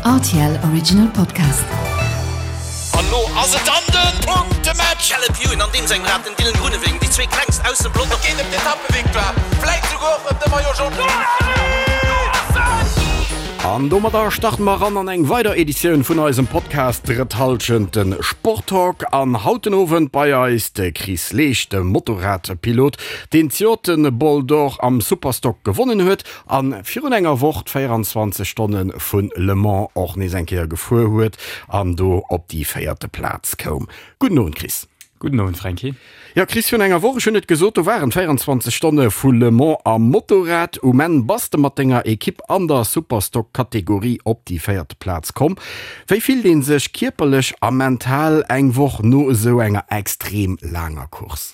Rtl Original Podcast. An lo ass et dann den Punktematch! Caleb Ewan an deem sengem Rad, den Dylan Groenewegen, déi zwee klengst aus dem Pelotong. Et geet ëm d'Etappevictoire, vläit souguer och ëm de Maillot Jaune. An domadder starten mer eran an eng weider Editioun vun eisem Podcast Drëtt Hallschent, den Sporttalk. An haut den Owend bei eis de Chris Leesch, de Motorradpilot, deen d'Jort de Bol d'Or am Superstock gewonnen huet an virun enger Woch d'24 Stonne vu Le Mans och nees eng Kéier gefuer huet an do op déi véierte Plaz koum. Gudden Owend Chris. Gudden Owend Franky. Jo Chris, virun enger Woch, ech hunn et gesot, do waren d'24 Stonne vu Le Mans am Motorrad. Um Enn bass de mat denger Ekipp an der Superstock Kategorie op déi véierte Plaz komm. Wéi fillt ee sech kierperlech a mental eng Woch no esou enger extrem laanger Course?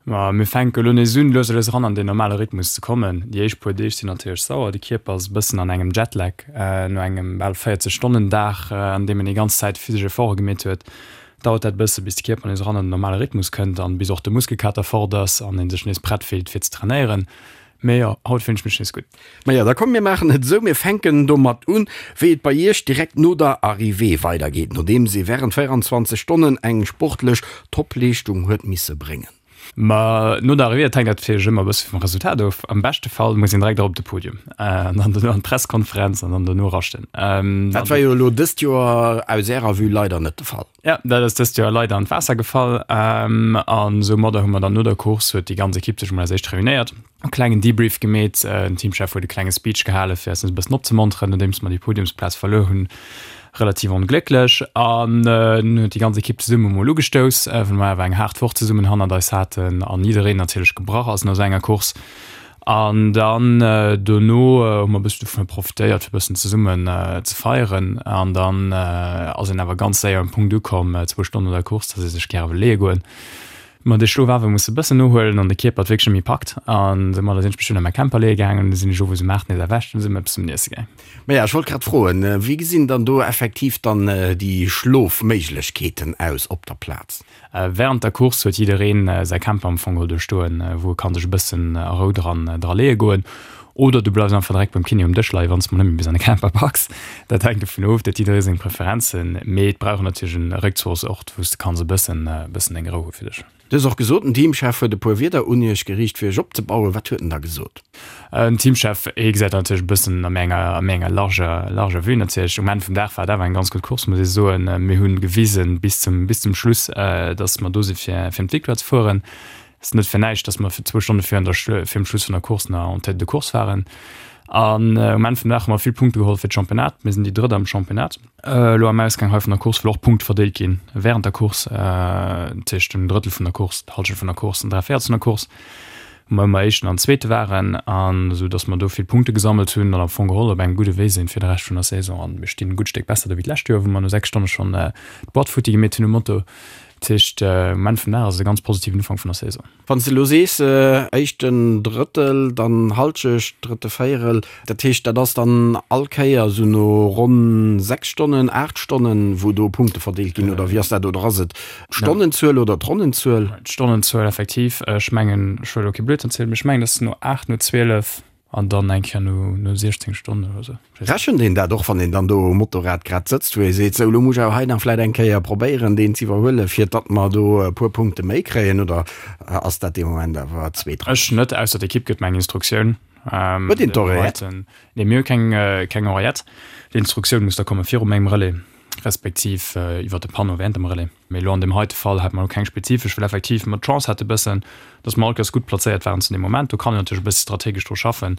Ma mir fänke lo nees un, lues a lues eran an deen normale Rhythmus ze kommen. Déi éischt puer Deeg sinn natierlech sauer, de Kierper ass e bëssen an engem Jetlag no engem bal 40 Stonnen Dag, an deem en déi ganz Zäit physesch Efforte gemeet huet. Dauert dat e bësse bis de Kierper nees eran an den normale Rhythmus kënnt an bis och de Muskelkater fort ass an ee sech nees prett fillt fir ze trainéieren. Mee jo, haut fillen ech mech nees gutt. Maja, da komm mir maachen et esou, mir fänken domat un, wéi et bei Iech direkt no der Arrivée weidergeet, nodeems ee wärend 24 Stonnen eng sportlech Topleeschtung huet misse bréngen. Ma no der Arrivée, dat hänkt natierlech ëmmer e bësse vum Resultat of. Am beschte Fall muss een direkt erop op de Podium an dann dono an d'Presskonferenz an dann dono raschten. Dat war jo elo dëst Joer aus Ärer Vue leider net de Fall. Ja, dat ass dëst Joer leider an d'Waasser gefall. An soumadder hu mer dann no der Course, huet déi ganz Ekipp sech emol als éischt reunéiert, e klengen Debrief gemeet. Den Teamchef huet e klenge Speech gehale fir eis nees e bëssen opzemonteren, nodeems mer déi Podiumsplaz verluer hunn, relativ onglécklech. An dunn huet déi ganz Ekipp zesumme mol ugestouss, well mer awer eng haart Woch zesummen hannert eis haten an jiddereen natierlech gebrach ass no esou enger Course. An dann dono hu mer e bëssen dovunner profitéiert, fir e bëssen zesummen ze feieren. An dann ass een awer ganz séier um Punkt ukomm, zwou Stonnen no der Course, dass ee sech gäre wëll leeë goen. Ma de Schlof awer musse e bëssen nohuelen an de Kierper et wierklech net méi packt. An soumadder sinn ech mech dunn a mäi Camper leeë gaangen. Du sinn ech owes um 8 nees erwächt an du si mer eppes zum Iesse gaang. Maja, ech wollt grad froen, wéi gesinn dann do effektiv dann déi Schlofméiglechkeeten aus op der Plaz? Während der Course huet jiddereen säi Camper am Fong geholl do stoen, wou e kann sech e bëssen a Rou dran dra leeë goen. Oder du bleifs einfach direkt beim Kiné um Dësch leien, wann s de mol net méi bis an de Camper packs. Dat hänkt dovun of, dat huet jidderee seng Preferenzen. Mee et brauch een natierlech en Réckzuchsort, wou s de kanns e bëssen e bëssen deng Rou hu fir dech. Du hues och gesot, den Teamchef huet e puer Wierder un iech geriicht, fir iech opzebauen. Wat huet en da gesot? Den Teamchef, hie gesäit dat natierlech e bëssen a méi enger, a méi enger larger, larger Vue natierlech. Um Enn vum Dag war et awer eng ganz gutt Course, muss ee soen. Mir hu gewisen bis zum, bis zum Schluss, datt mer do si fir, fir ëm d'Victoire ze fueren. Et ass net fir näischt, datt mer zwou Stonne virun der, virum Schluss vun der Course nach en tête de course waren. An um Enn vum Dag hu mer vill Punkte geholl fir d'Championnat. Mir sinn déi Drëtt am Championnat. Elo am Ausgang hei vun der Course, wëll och Punkte verdeelt ginn während der Course, dat heescht en Drëttel vun der Course, d'Hallschent vun der Course an 3 Véierels vun der Course, wou mer ëmmer Éischten an Zweete waren, an esou datt mer do vill Punkte gesammelt hunn an am Fong geholl op engem gudde Wee sinn fir de Rescht vun der Saison. An mir stinn e gutt Stéck besser do wéi d'lescht Joer, wou mer no 6 Stonne schonn d'Boîte futti gemeet hunn um Moto. Dat heescht, um Enn vum Dag ass et e ganz positiven Ufank vun der Saison. Wann s de elo sees, éischten Drëttel, dann Halschecht, drëtte Véierel, dat heescht, dat ass dann all Kéier esou no ronn 6 Stonnen, 8 Stonnen, wou do Punkte verdeelt ginn, oder wéi ass dat? Oder ass et d'Stonnenzuel oder d'Ronnenzuel? D'Stonnenzuel effektiv. Ech mengen, ech wëll elo kee Blödsinn zielen, mee ech mengen, et ass no 8, no 12 An dann eng Kéier no, no 16 Stonnen oder sou. Rechent een dat och, wann een dann do um Motorrad grad sëtzt, wou ee seet, sou, elo muss ech awer hei nach vläit eng Kéier probéieren, deen z'iwwerhuelen, fir datt mer do e puer Punkte méi kréien, oder ass dat dee Moment awer zweetrangeg? Ech net, ausser d'Ekipp gëtt mer eng Instruktioun. Huet een d'Oreillette? Nee, mir hu keng, keng Oreillette. D'Instruktioun muss da komme viru mengem Relais, respektiv iwwer de Panneau während dem Relais. Mee elo an deem heite Fall hat mer elo keng spezifesch, well effektiv mer d'Chance hate bëssen, dass mer all Kéiers gutt plazéiert waren zu deem Moment. Do kann een natierlech e bëssi strategesch dru schaffen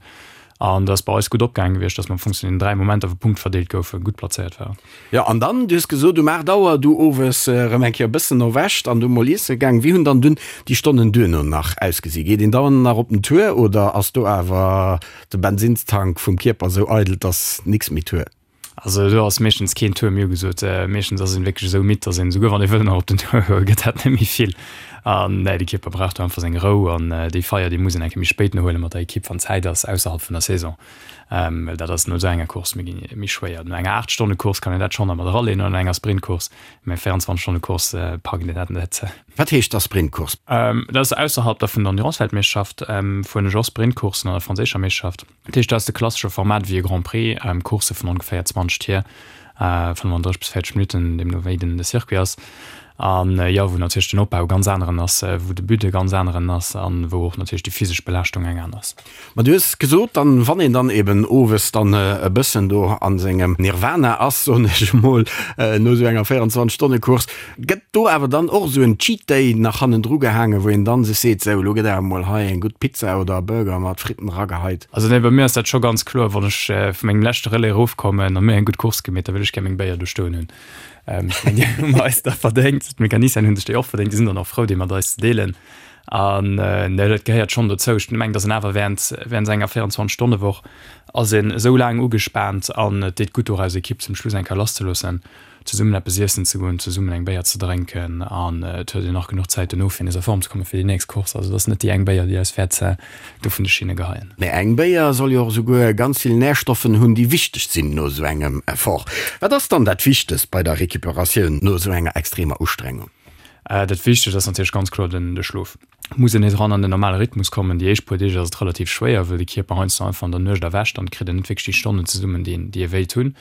an dat ass bei eis gutt opgaange gewiescht, dass mer am Fong zu den 3 Momenter, wou Punkte verdeelt goufen, gutt plazéiert waren. Jo, an dann, du hues gesot, um 8 Auer du owes erëm eng Kéier e bëssen erwächt an du mol iesse gaang. Wéi hunn dann dunn déi Stonnen duerno nach ausgesi? Geet een dann nach op den Tour oder ass do awer de Bensinnstank vum Kierper esou eidel, dass nix méi Tour? Also do ass meeschtens keen Tour méi ugesot. Meeschtens ass een wierklech esou midd, dass een esouguer wann ee wëll nach op den Tour goen, gëtt dat net méi vill. An nee, de Kierper brauch do einfach seng Rou an déi Feier, déi muss een eng Kéier méi spéit nohuelen mat der Ekipp, wann Zäit ass, ausserhalb vun der Saison. Well dat ass no esou enger Course méi, méi schwéier. No enger 8 Stonne Course kann een dat schonn nach mat eraleen oder no enger Sprintcourse, mä 24 Stonne Course packt een dat net. Wat heescht da Sprintcourse? Dat ass ausserhalb da vun der Endurance-Weltmeeschterschaft, fueren ech och Sprintcoursen an der franséischer Meeschterschaft. Dat heescht, dat ass de klassesche Format wéi e Grand Prix, Coursse vun ongeféier 20 Tier, 35 bis 40 Minutten, deemno wéi den de Circuit ass. An jo, wou natierlech den Opbau e ganz aneren ass, wou de But e ganz aneren ass an wou och natierlech déi physesch Belaaschtung eng aner ass. Ma du hues gesot, dann, wann een dann eben owes dann e bëssen do a sengem Nirvana ass, soen ech emol, no esou enger 24 Stonne Course, Gëtt do awer dann och esou en Cheat Day nach hannendru gehaangen, wou een dann sech seet, sou, elo gëtt awer mol hei eng gutt Pizza oder e Burger mat Fritten erageheit? Also nee, bei mir ass dat scho ganz kloer, wann ech vu mengem leschte Relais erofkommen a mir eng gutt Course gemeet, da wëll ech gär meng Béier do stoen hunn. Ech mengen, déi hu mer eis da verdéngt, d'Mecanicien hunn sech déi och verdéngt, déi sinn dann och frou, déi mat eis ze deelen. An nee, dat gehéiert schonn dozou. Ech mengen, datt een awer während, während enger 24 Stonne Woch ass een esou laang ugespaant an et deet gutt och eis Ekipp zum Schluss eng Kéier lasszeloossen. zesummen eppes iessen ze goen, zesummen eng Béier ze drénken an et huet een nach genuch Zäit dono fir nees a Form ze kommen fir déi nächst Course. Also et ass net déi eng Béier déi eis wäert do vun de Schinne geheien. Mee eng Béier soll jo och esouguer ganz vill Närstoffen hunn déi wichteg sinn no esou engem Effort. Wat ass dann dat Wichtegst bei der Recuperatioun no esou enger extremer Ustrengung? Dat Wichtegst ass natierlech ganz kloer den de Schlof. Muss een nees eran an den normale Rhythmus kommen. Déi éischt puer Deeg ass et relativ schwéier, wëll de Kierper heiansdo einfach an der Nuecht erwächt an et kritt een net wierklech déi Stonnen zesummen, déi een, déi ee wéilt hunn.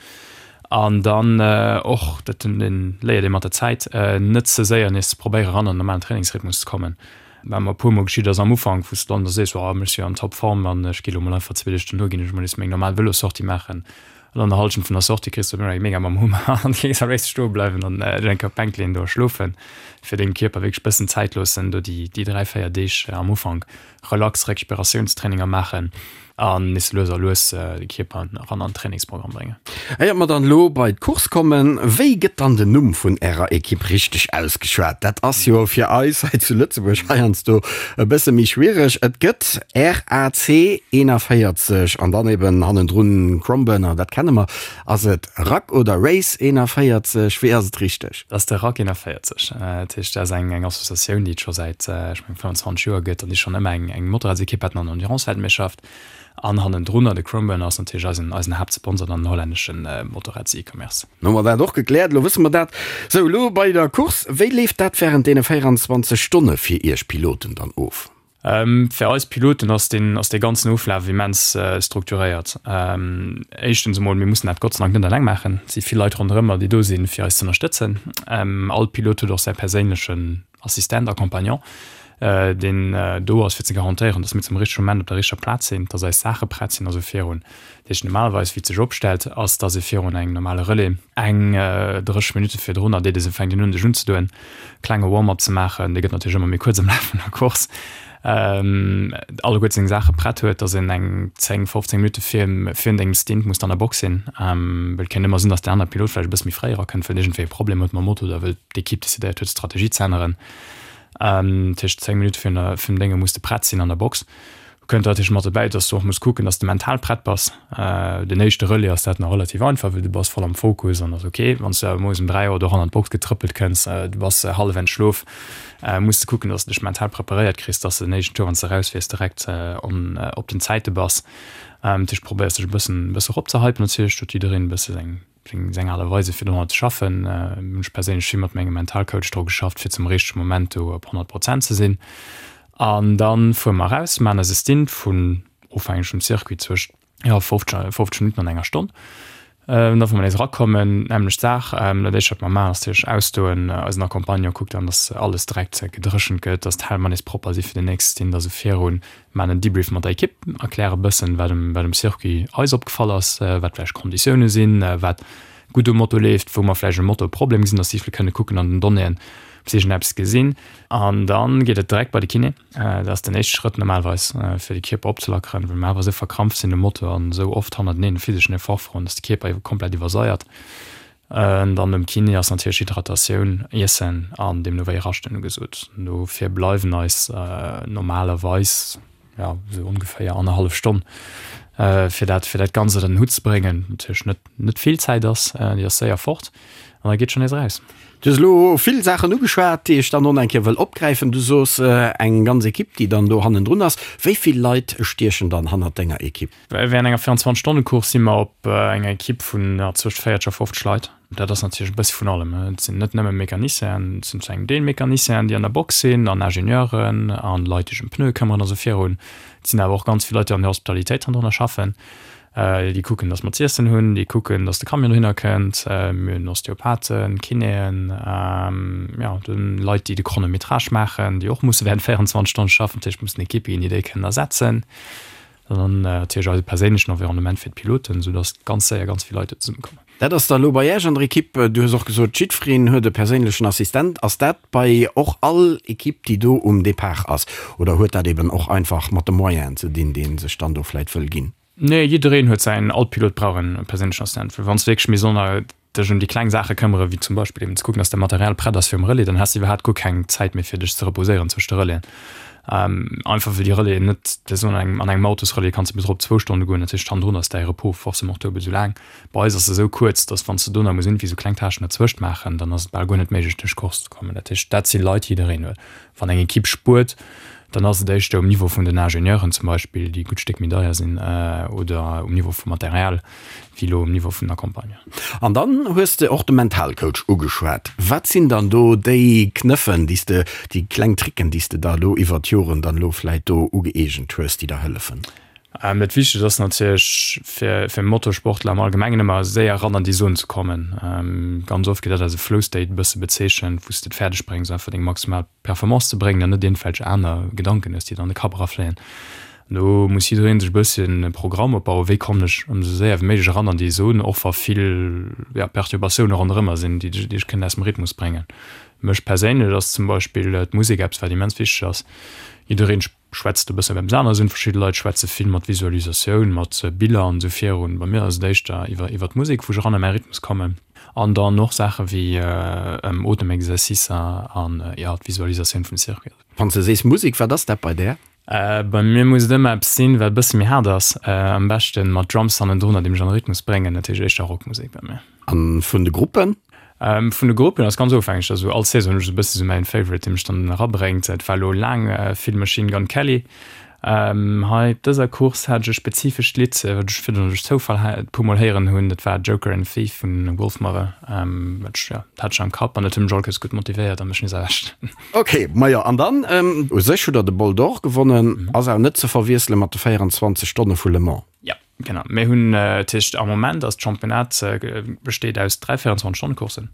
An dann och, dat léiert ee mat der Zäit, net ze séier nees ze probéieren eran an den normalen Trainingsrhythmus ze kommen. Wat mer e puer mol geschitt ass am Ufank, wou s de dann da sees, oh ech si jo an Topform an ech gi lo mol einfach zwee Deeg dono ginn ech mol nees meng normal Vëlossortie maachen. An an der Hallschent vun der Sortie kriss du eng mega mam Hummer an kéints am léifste stoe bleiwen an dech eng Kéier op d'Bänk leeën do a schlofen, fir dengem Kierper wierklech bëssen Zäit loossen, do déi déi 3, 4 Deeg am Ufank relax Recuperatiounstraininger maachen an nees lues a lues de Kierper eran an den Trainingsprogramm bréngen. Éiert mer dann elo bei d'Course kommen, wéi gëtt dann den Numm vun ärer Ekipp richteg ausgeschwat? Dat ass jo fir eis hei zu Lëtzebuerg heiansdo e bësse méi schwiereg. Et gëtt RAC 41 an dann eben hannendrun Cromburner, dat kenne mer. Ass et Rack oder Race 41? Wéi ass et richteg? Dat ass de Rack 41. Dat heescht, dat ass eng eng Associatioun, déi et scho säit, ech mengen, 25 Joer gëtt an déi schonn ëmmer eng eng Motorradsekipp haten an der Endurance-Weltmeeschterschaft. An hannendrunner de Cromburner ass natierlech eisen eisen Haaptsponsor an den hollännesche Motorrads-E-Commerce. Hu mer dat och gekläert, elo wësse mer dat. Sou, elo bei der Course, wéi leeft dat wärend deene 24 Stonne fir Iech Piloten dann of? Fir eis Piloten ass deen ass dee ganzen Oflaf immens strukturéiert. Éischtens emol, mir mussen dat Gott sei Dank net eleng maachen. Et si vill Leit ronderëmmer, déi do sinn, fir eis ze ënnerstëtzen. All Pilot huet och säi perséinlechen Assistent, Accompagnant, deen do ass, fir ze garantéieren, datt mir zum richtege Moment op der richteger Plaz sinn, datt eis Saache prett sinn a sou virun. Dat heescht, normalerweis, wéi et sech opstellt, ass, datt ee virun engem normale Relais eng 30 Minutte virdrunner, deet ee se, fänkt een un, sech unzedoen, klenge Warm-up ze maachen, dee gëtt natierlech ëmmer méi kuerz am Laf vun der Course, alleguerte seng Saache prett huet, datt een eng 10, 15 Minutte virun dengem Stint muss an der Box sinn, well et kéint ëmmer sinn, datt deen anere Pilot vläicht e bësse méi fréi erakënnt, well en iergendwéi e Problem huet mam Moto oder wëll d'Ekipp decidéiert huet d'Strategie ze änneren. Tëscht 10 Minutte virun der virun Dénge muss de prett sinn an der Box. Kënnt natierlech mat dobäi, dass du och muss kucken, dass de mental prett bass. Den éischte Relais ass dat nach relativ einfach, well du bass voll am Fokus an ass ok. Wann s du awer moies um 3 Auer do eran an d'Box getrëppelt kënns, du bass hallef entschlof, muss de kucken, dass de dech mental preparéiert kriss, dass de den éischten Tour, wann s de erausfiers, direkt on op den Zäite bass. Dat heescht, probéiers dech e bëssen e bësse eropzehypen natierlech, huet jiddereen e bësse seng Seng Aart a Weise fir domadder ze schaffen. Hunn ech perséinlech vill mat mengem Mentalcoach dru geschafft, fir zum richtege Moment do op 100 Prozent ze sinn. An da fuere mer eraus, maachen eise Stint vun, ofhängeg vum Circuit, zwëscht, jo, 50, 50 Minutten an enger Stonn. An da wa mer nees erakommen, nämmlecht Saach. Dat éischt wat mer maachen, ass natierlech ausdoen. Eisen Accompagnant kuckt dann, dass alles direkt gedréchent gëtt, dass d'Helmer nees propper si fir den nächste Stint a sou virun. Maan en Debrief mat der Ekipp, erkläre bëssen wat um wat um Circuit eis opgefall ass, wat vläicht Konditioune sinn, wat gutt um Moto leeft, wou mer vläicht um Moto e Problem gesinn, dass si vläicht kënne kucken an den Donnéeën, ob si iergendeppes gesinn. An dann geet et direkt bei de Kiné. Dat ass den éischte Schrëtt normalerweis fir de Kierper opzelackeren, well mer awer esou verkrampft sinn um Moto an esou oft hannerteneen e physeschen Effort froen, dass de Kierper komplett iwwersaiert. Dann nom Kiné ass natierlech Hydratatioun, Iessen an deemno wéi Raschten ugesot. Dofir bleiwen eis normalerweis, jo, esou ongeféier annerhallef Stonn, fir dat, fir dat Ganzt ënner den Hutt ze bréngen. Natierlech net, net vill Zäit ass, déi ass séier fort an da geet schonn nees eraus. Du hues elo vill Saachen ugeschwat, déi ech dann och nach eng Kéier wëll opgräifen. Du sos eng ganz Ekipp, déi dann do hannendrun ass. Wéi vill Leit stiechen dann hannert denger Ekipp? Während enger 24 Stonne Course si mer op enger Ekipp vun zwëscht 40 a 50 Leit. Dat ass natierlech e bëssi vun allem. Et sinn net nëmme Mecanicienen, et sinn zu engem Deel Mecanicienen, déi an der Box sinn, an Ingenieuren an Leit, déi sech ëm Pneue këmmeren a sou virun. Et sinn awer och ganz vill Leit, déi an der Hospitalitéit hannendrunner schaffen. Déi kucken, datt mer z'iessen hunn, déi kucken, datt de Camion dohinner kënnt. Mir hunn Osteopathen, Kinéen, jo, dann Leit, déi de Chronométrage maachen, déi och musse während 24 Stonne schaffen. Dat heescht, et mussen Ekippe ginn, déi déi kënnen ersetzen. An dann natierlech eise perséinlechen Environnement fir d'Piloten, soudatt ganz séier ganz vill Leit do zesummekommen. Dat ass da elo bei Iech an der Ekipp. Du hues och gesot, jiddwereen huet e perséinlechen Assistent. Ass dat bei och all Ekipp, déi do um Depart ass? Oder huet dat eben och einfach mat de Moyenen ze dinn, déi ee sech dann do vläit wëll ginn? Nee, jiddereen huet säin, all Pilot brauch e perséinlechen Assistent, well wann s de wierklech misst ënner dech ëm déi kleng Saache këmmere wéi zum Beispill eben ze kucken, dass däi Material prett ass fir um Relais, dann has de iwwerhaapt guer keng Zäit méi fir dech ze reposéieren zwëscht de Relaisen. Einfach well déi Relaisen net, dat ass an engem an engem Autosrelais kanns de bis erop zwou Stonne goen, dat heescht hannendrun ass däi Repos forcément duebel esou laang. Bei eis ass se esou kuerz, dass wann s de do nach muss iergendwéi esou kleng Tâchen derzwëscht maachen, dann ass et bal guer net méiglech duerch d'Course ze kommen. Dat heescht, dat si Leit, déi jiddereen huet. Wann eng Ekipp spuert, dann ass et éischter um Niveau vun den Ingenieuren zum Beispill, déi e gutt Stéck méi deier sinn, oder um Niveau vum Material, wéi elo um Niveau vun der Campagne. An dann hues de och de Mentalcoach ugeschwat. Wat sinn dann do déi Knëffen, déi s de, déi kleng Tricken, déi s de der elo iwwert d'Joren dann elo vläit do ugëeegent hues, déi der hëllefen? Dat Wichtegst ass natierlech fir fir Motorsportler am Allgemengen ëmmer séier eran an déi Zon ze kommen. Ganz oft gëtt dat als e Flow State e bësse bezeechent, wou s de et fäerdeg bréngs einfach deng maximal Performance ze bréngen an net iergendwelch aner Gedanken hues, déi der an de Kapp erafléien. Do muss jidderee sech e bësschen e Programm opbauen, wéi kommen ech esou séier wéi méiglech eran an déi Zon, och wa vill, ja, Perturbatioune ronderëmmer sinn, déi dech kënnen aus dem Rhythmus bréngen. Mech perséinlech ass zum Beispill d'Musek eppes, wat immens wichteg ass. Jiddereen schwätzt e bëssen op eppes aneres un. Verschidde Leit schwätze vill mat Visualisatioun, mat Biller an esou virun. Bei mir ass et éischter iwwer iwwer d'Musek, wou ech eran a mäi Rhythmus kommen. An dann och Saache wéi Otemexercicer an, jo, d'Visualisatioun vum Circuit. Wann s de sees Musek, wat ass dat bei där? Bei mir muss et ëmmer eppes sinn, wat e bësse méi haart ass. Am beschten mat Drums hannendrun, déi mech an de Rhythmus bréngen. Dat heescht éischter Rockmusek bei mir. An vun de Gruppen? Vun de Gruppen ass ganz ofhängeg. Also all Saison hunn ech esou e bësse sou mäin Favorite, dee mech dann erabréngt. Et war elo laang vill Machine Gun Kelly. Hei op dëser Course hat ech e spezifescht Lidd, wat ech virdrun duerch Zoufall e puer mol héieren hunn. Dat war Joker and Thief vun Wolfmother. Wat ech, jo, dat hat ech am Kapp an dat huet mech all Kéiers gutt motivéiert a mech nees erwächt. Ok, majo an dann u sech hutt der de Bol d'Or gewonnen, ass awer net ze verwiessele mat de 24 Stonne vu Le Mans. Jo, genau. Mir hunn, dat heescht am Moment ass d'Championnat besteet aus 3 24 Stonne Courssen.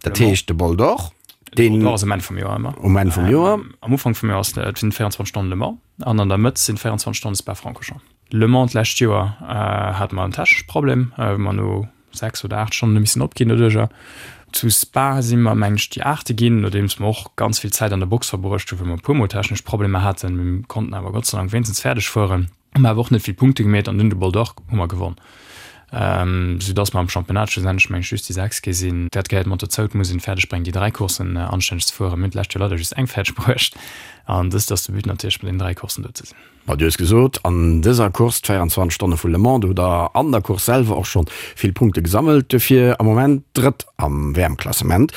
Dat heescht de Bol d'Or, deen. De Bol d'Or ass um Enn vum Joer ëmmer. Um Enn vum Joer. Am Ufank vum Joer ass et sinn 24 Stonnen Le Mans an an der Mëtt sinn 24 Stonne Spa-Francorchamps. Le Mans d'lescht Joer hate mer en technesche Problem, wou mer no 6 oder 8 Stonnen hu missen opginn doduercher. Zu Spa si mer, meng ech, déi Aachte ginn, nodeems mer och ganz vill Zäit an der Box verbruecht hunn, wou mer e puer Mol technesch Problemer haten. Mir konnten awer Gott sei Dank wéinstens fäerdeg fueren, hu mer awer och net vill Punkte gemeet an dunn de Bol d'Or hu mer gewonn, soudass mer am Championnat schlussendlech, meng ech, just déi Sechst gi sinn. Dat gehéiert mat dozou, et muss een fäerdeg bréngen, déi 3 Courssen anstänneg ze fueren. Mir hunn d'lescht Joer leider just eng fäerdeg bruecht an dëst ass de But natierlech, bei deenen 3 Courssen do ze sinn. Ma du hues gesot, an dëser Course, d'24 Stonne vu Le Mans, do hutt der an der Course selwer och schonn vill Punkte gesammelt, duerfir am Moment Drëtt am WM-Klassement.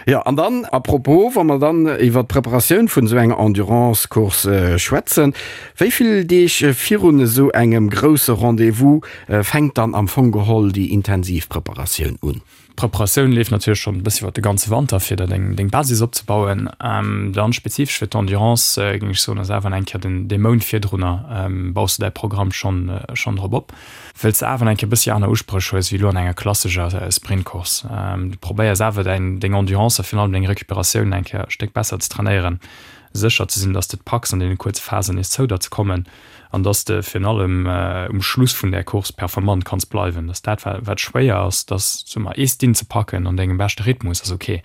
Jo, an dann, à propos, wa mer dann iwwer d'Preparatioun vun esou enger Endurance-Course schwätzen, wéi vill Deeg virun esou engem grousse Rendez-vous fänkt dann am Fong geholl déi intensiv Preparatioun un? D'Preparatioun leeft natierlech schonn e bëssi iwwer de ganze Wanter, fir der deng deng Basis opzebauen. Dann spezifesch fir d'Endurance géing ech soen, ass awer eng Kéier den dee Mount virdrunner baus de däi Programm schonn schonn drop op, wëlls de awer eng Kéier e bëssi aner Uspréch hues wéi elo an enger klassescher Sprintcourse. Du probéiers awer däin deng Endurance a virun allem deng Recuperatioun eng Kéier e Stéck besser ze trainéieren, sécher ze sinn, dass de et packs an deene kuerze Phasen nees zou der ze kommen. an dass de virun allem um Schluss vun där Course performant kanns bleiwen. Dass dat wat schwéier ass, dass soe mer ee Stint ze packen an dengem beschte Rhythmus ass ok,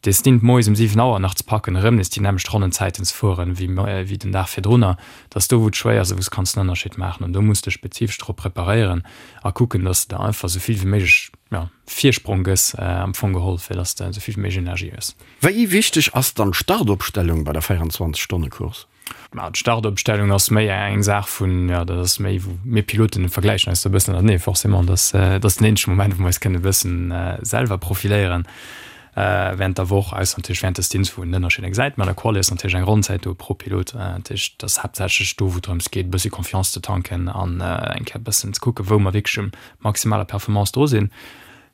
dee Stint moies um 7 Auer nach ze packen, erëm nees déi nämmlecht Ronnenzäiten ze fueren wéi den Dag virdrunner, dass do wou et schwéier ass a wou s kanns den Ënnerscheed maachen. An do muss de spezifesch drop preparéieren a kucken, dass de der einfach esou vill wéi méiglech, jo, Virsprong gëss am Fong geholl, fir dass de esou vill wéi méiglech Energie hues. Wéi wichteg ass dann d'Startopstellung bei der 24 Stonne Course? Ma d'Startopstellung ass méi eng Saach vun, jo, dat ass méi wou mir Piloten vergläichen eis do e bëssen ënnertenee forcément. Dat ass, dat ass den eenzege Moment, wou mer eis kënnen e bëssen selwer profiléieren. Während der Woch, ausser natierlech während de Stints, wou een den Ënnerscheed gesäit. Mä an der Quali ass natierlech eng Ronnenzäit do pro Pilot. Dat heescht, et ass haaptsächlech do, wou et drëms geet, e bëssi Confiance ze tanken an eng Kéier e bëssen ze kucken, wou mer wierklech um maximaler Performance dru sinn.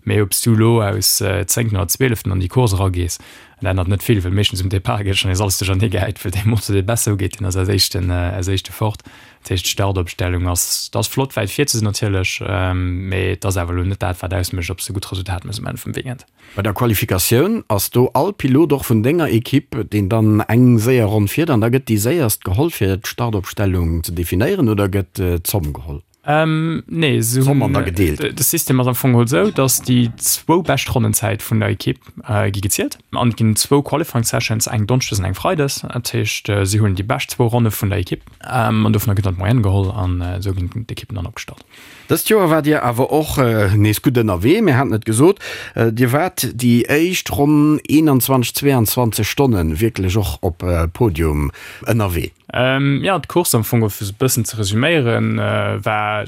Mee ob s du elo aus zéngten oder zwieleften an déi Course eragees, dat ännert net vill, well meeschtens um Depart gëtt schonn nees alles duerchernee gehäit, well dee Motor, dee besser ugeet, deen ass als éischten, als éischte fort. Dat heescht, d'Startopstellung ass, et ass flott wäit vir ze sinn natierlech, mee et ass awer elo net dat, wat ausmécht, ob s de gutt Resultat méchs um Enn vum Weekend. Bei der Qualifikatioun ass do all Pilot och vun denger Ekipp, deen dann eng séier Ronn fiert an da gëtt déi séierst geholl fir d'Startopstellung ze definéieren oder gëtt d'Zomm geholl? Nee, se D'Zomm an da gedeelt. De System ass am Fong geholl esou, datt déi zwou bescht Ronnenzäit vun der Ekipp gi gezielt an et ginn zwou Qualifying Sessions, eng Donneschdes an eng Freides. Dat heescht, si huelen déi bescht zwou Ronne vun der Ekipp an dovunner gëtt dann d'Moyenne geholl an esou ginn d'Ekippen dann opgestallt. Dëst Joer waart Dir awer och nees gutt ënnerwee. Mir haten et gesot, Dir waart déi éischt ronn 21, 22 Stonne wierklech och op Podium ënnerwee. Jo, d'Course am Fong, fir se e bëssen ze resuméieren, war,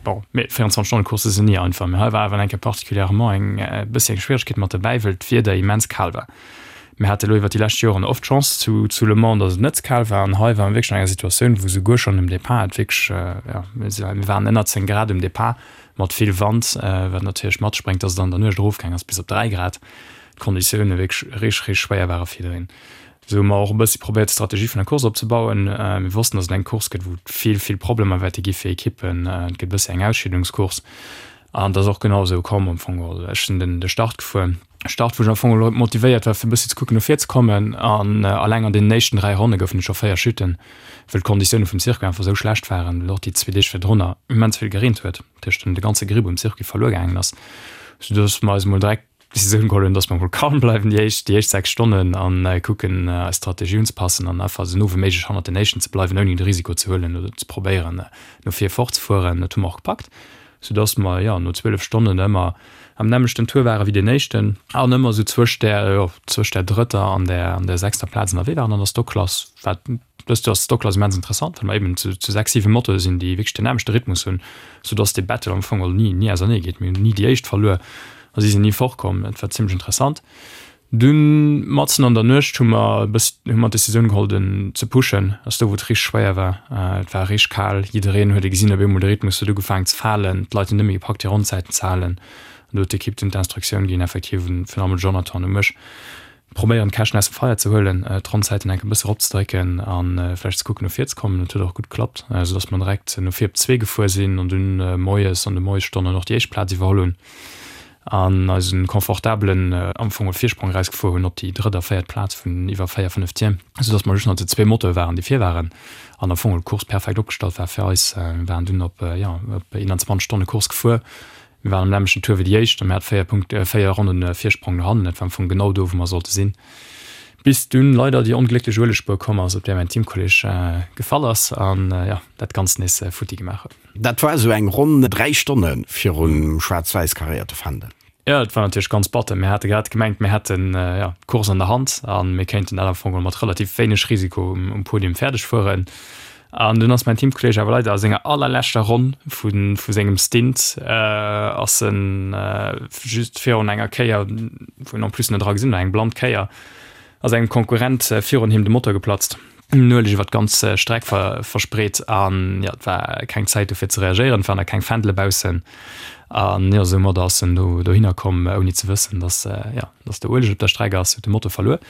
bon, 24 Stonne Coursse sinn ni einfach, mee hei war awer eng Kéier particulièrement eng e bëssi eng Schwieregkeet mat dobäi, well d'Wieder immens kal war. Mir hate lo iwwer déi lescht Joren oft d'Chance zu zu Le Mans, datt et net ze kal war. An hei ware mir wierklech an enger Situatioun, wou souguer schonn um Depart et wierklech, jo, mir waren ënner 10 Grad um Depart mat vill Wand, wat natierlech mat sech bréngt, datt et an der Nuecht erofgaang ass bis op 3 Grad. D'Konditioune wierklech richteg, richteg schwéier ware fir jiddereen. Esou hu mer och e bëssi probéiert d'Strategie vun der Course opzebauen. Mir wossten, datt et eng Course gëtt, wou et vill, vill Problemer wäerte gi fir Ekippen. Et gëtt e bëssi eng Ausscheedungscourse. An et ass och genau esou komm am Fong geholl. Ech sinn den de Start gefuer. Start, wou ech am Fong geholl motivéiert war, fir e bëssi ze kucken, no vir ze kommen. An alleng an deenen éischten 3 Ronne goufen et scho 4 Chutten, wëll d'Konditioune vum Circuit einfach esou schlecht waren, well och déi zwee Deeg virdrunner immens vill gereent huet, dat heescht de ganze Gripp um Circuit verluer gaangen ass, soudass mer eis emol direkt d'Decisioun geholl hunn, dass mer emol calm bleiwen déi éischt déi éischt 6 Stonnen an kucken, eis Strategie unzepassen an einfach esou no wéi méiglech hannert den éischten ze bleiwen, ouni de Risiko ze huelen oder ze probéieren, no vir fortzefueren. Dat hu mer och gepackt. sou dass mer, jo, no 12 Stonnen ëmmer am nämmlechten Tour ware wéi deen éischten an ëmmer sou zwëscht där, jo, zwëscht där drëtter an där, an där sechster Plaz ënnerwee waren. An der Stockklass war, dëst Joer ass d'Stockklass immens interessant, well mer eben zu, zu sechs, siwe Motoe sinn, déi wierklech den nämmlechte Rhythmus hunn, sou dass dee Battle am Fong ni, ni ausernee geet. Mir hunn ni déi éischt verluer a si sinn ni fortkomm. Dat war zimmlech interessant. Dunn matzen an der Nuecht hu mer e bëssi, hu mer d'Decisioun geholl den ze pushen, ass do wou et richteg schwéier war. Et war richteg kal, jiddereen huet e gesinn, op eemol de Rhythmus huet ugefaangen ze falen, d'Leit hunn net méi gepackt hir Ronnzäiten ze halen. An do huet d'Ekipp dunn d'Instruktioun ginn, effektiv un virun allem un de Jonathan, u mech, probéieren d'Käschten aus dem Feier ze huelen, d'Ronnzäiten enk e bësse eropzedrécken a vläicht ze kucken no vir ze kommen. Dat huet och gutt geklappt, esou datt mer direkt no vir op zwee gefuer sinn an dunn moies an de Moiesstonnen och déi éischt Plaz iwwerholl hunn. an eisen confortabelen am Fong Virsprong erausgefuer hunn op déi drëtt a véiert Plaz vun iwwer 4, 5 Tier, sou dass mer just nach zu zwee Motoe waren, déi vir waren an am Fong d'Course perfekt opgestallt war fir eis. Mir waren dunn op, jo, op 21 Stonne Course gefuer. Mir waren am nämmlechten Tour wéi déi éischt a mir hate 4 Punkt, 4 Ronnen Virsprong no hannen. Dat war am Fong genau do, wou mer sollte sinn, bis dunn leider déi onglécklech Uelegspuer komm ass, op där mäin Teamkolleg gefall ass an, jo, dat Ganzt nees futti gemaach huet. Dat war esou eng ronn 3 Stonne virum schwaarz-wäiss karéierte Fändel. Jo, et war natierlech ganz batter. Mir hate grad gemengt, mir hätten, jo, d'Course an der Hand a mir kéinten dat am Fong geholl mat relativ wéineg Risiko um Podium fäerdeg fueren. An dunn ass mäin Teamkolleeg awer leider a senger allerleschter Ronn vu vu sengem Stint ass en just virun enger Kéier, wou en en plus net dra gesinn huet, eng blann Kéier, ass engem Konkurrent virun him de Motor geplatzt. Den Ueleg iwwer d'ganz Streck verspreet an jo, et war keng Zäit do fir ze reagéieren, et waren nach keng Fändele baussen an jo, soumadder ass en do dohinner komm ouni ze wëssen, dass jo, dass do Ueleg op der Streck ass, huet de Motor verluer.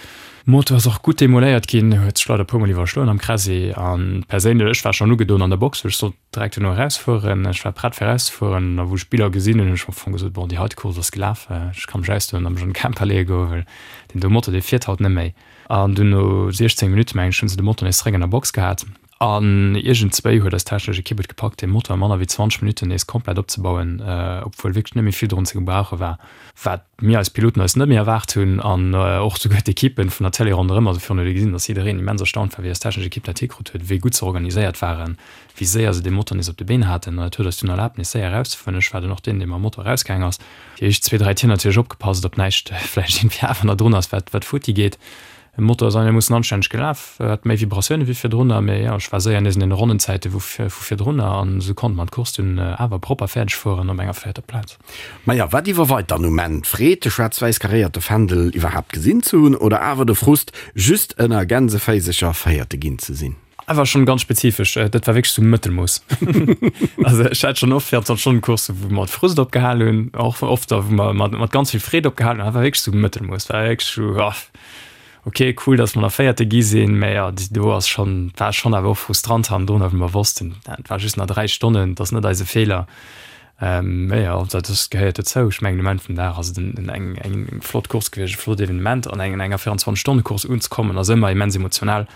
Motor ass och gutt demoléiert ginn, huet sech leider e puer mol iwwerschloen am Kräsi an perséinlech, ech war schonn ugedoen an der Box, well ech sollt direkt duerno erausfueren, ech war prett fir erauszefueren a wou ech d'Biller gesinn hunn, hunn ech am Fong gesot, bon, déi heite Course ass gelaf, ech ka mech ausdoen a mech an de Camper leeë goen, well deen do Motor, dee fiert haut net méi. An dunn no 16 Minutten, mengen ech, hunn se de Motor nees zeréck an der Box gehat. An iergendzwéi huet eis technesch Ekipp et gepackt, dee Motor a manner wéi 20 Minutten nees komplett opzebauen, obwuel wierklech net méi vill drun ze gebrauche war, wat mir eis Piloten eis net méi erwaart hunn an och souguer d'Ekippen vun der Télé ronderëm. Also virun huet ee gesinn, datt jiddereen immens erstaunt war, wéi eis technesch Ekipp dat hikrut huet, wéi gutt se organiséiert waren, wéi séier se dee Motor nees op de Been haten. An dat huet eis dunn erlaabt, nees séier erauszefueren. Ech war dunn och deen, dee mam Motor erausgaang ass. Déi éischt zwee, dräi Tier natierlech opgepasst, ob näischt vläicht iergendwéi awer nach drun ass, wat wat futti geet. De Motor ass einermoossen anstänneg gelaf, hat méi Vibratioune wéi virdrunner, mee jo, ech war séier nees an deene Ronnenzäite vu virdrunner an esou konnte mer d'Course dunn awer propper fäerdeg fueren op enger véierter Plaz. Maja, wat iwwerweit dann um Enn? D'Freed, de schwaarz-wäiss karéierte Fändel iwwerhaapt gesinn ze hunn oder awer de Frust, just ënner Gänseféisecher Véierte ginn ze sinn? Awer schon ganz spezifesch, dat war wierklech sou Mëttelmooss. Also ech hat schon oft 24 Stonnen Coursen, wou mer mat Frust opgehal hunn, och oft der wou mer mat mat ganz vill Freed opgehal hunn, dat war wierklech sou Mëttelmooss, war wierklech sou ah ok cool, datt mer nach Véierte gi sinn, mä jo déi do ass schon war schon awer och frustrant hannendrun, well mer wossten, et war just nach 3 Stonnen, et ass net eise Feeler. Mä jo, dat ass, gehéiert dozou. Ech mengen um Enn vum Dag ass et en eng eng flott Course gewiescht, e flott Evenement. An eng enger 24 Stonne Course unzekommen ass ëmmer immens emotional.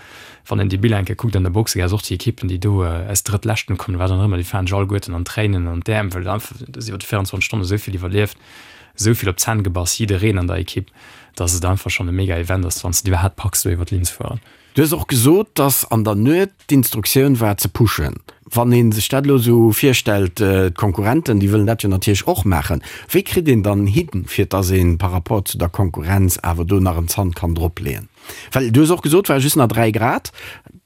Wann een déi Biller eng Kéier kuckt an der Boxegaass, och déi Ekippen, déi do aus Drëttleschten kommen, wat dann och ëmmer, déi falen sech alleguerten an d'Tréinen an d'Äerm, well einfach du hues iwwer déi 24 Stonne esou vill iwwerlieft, esou vill op d'Zänn gebass, jiddereen an der Ekipp, dass et einfach schonn e mega Event ass, wann s de et iwwerhaapt packs, do iwwer d'Linn ze fueren. Du hues och gesot, dass an der Nuet d'Instruktioun war ze pushen. Wann ee sech dat elo esou virstellt, d'Konkurrenten, déi wëllen dat jo natierlech och maachen. Wéi kritt een dann hin, fir dass ee par rapport zu der Konkurrenz awer do nach en Zant kann dropleeën? Well du hues och gesot, war just nach 3 Grad.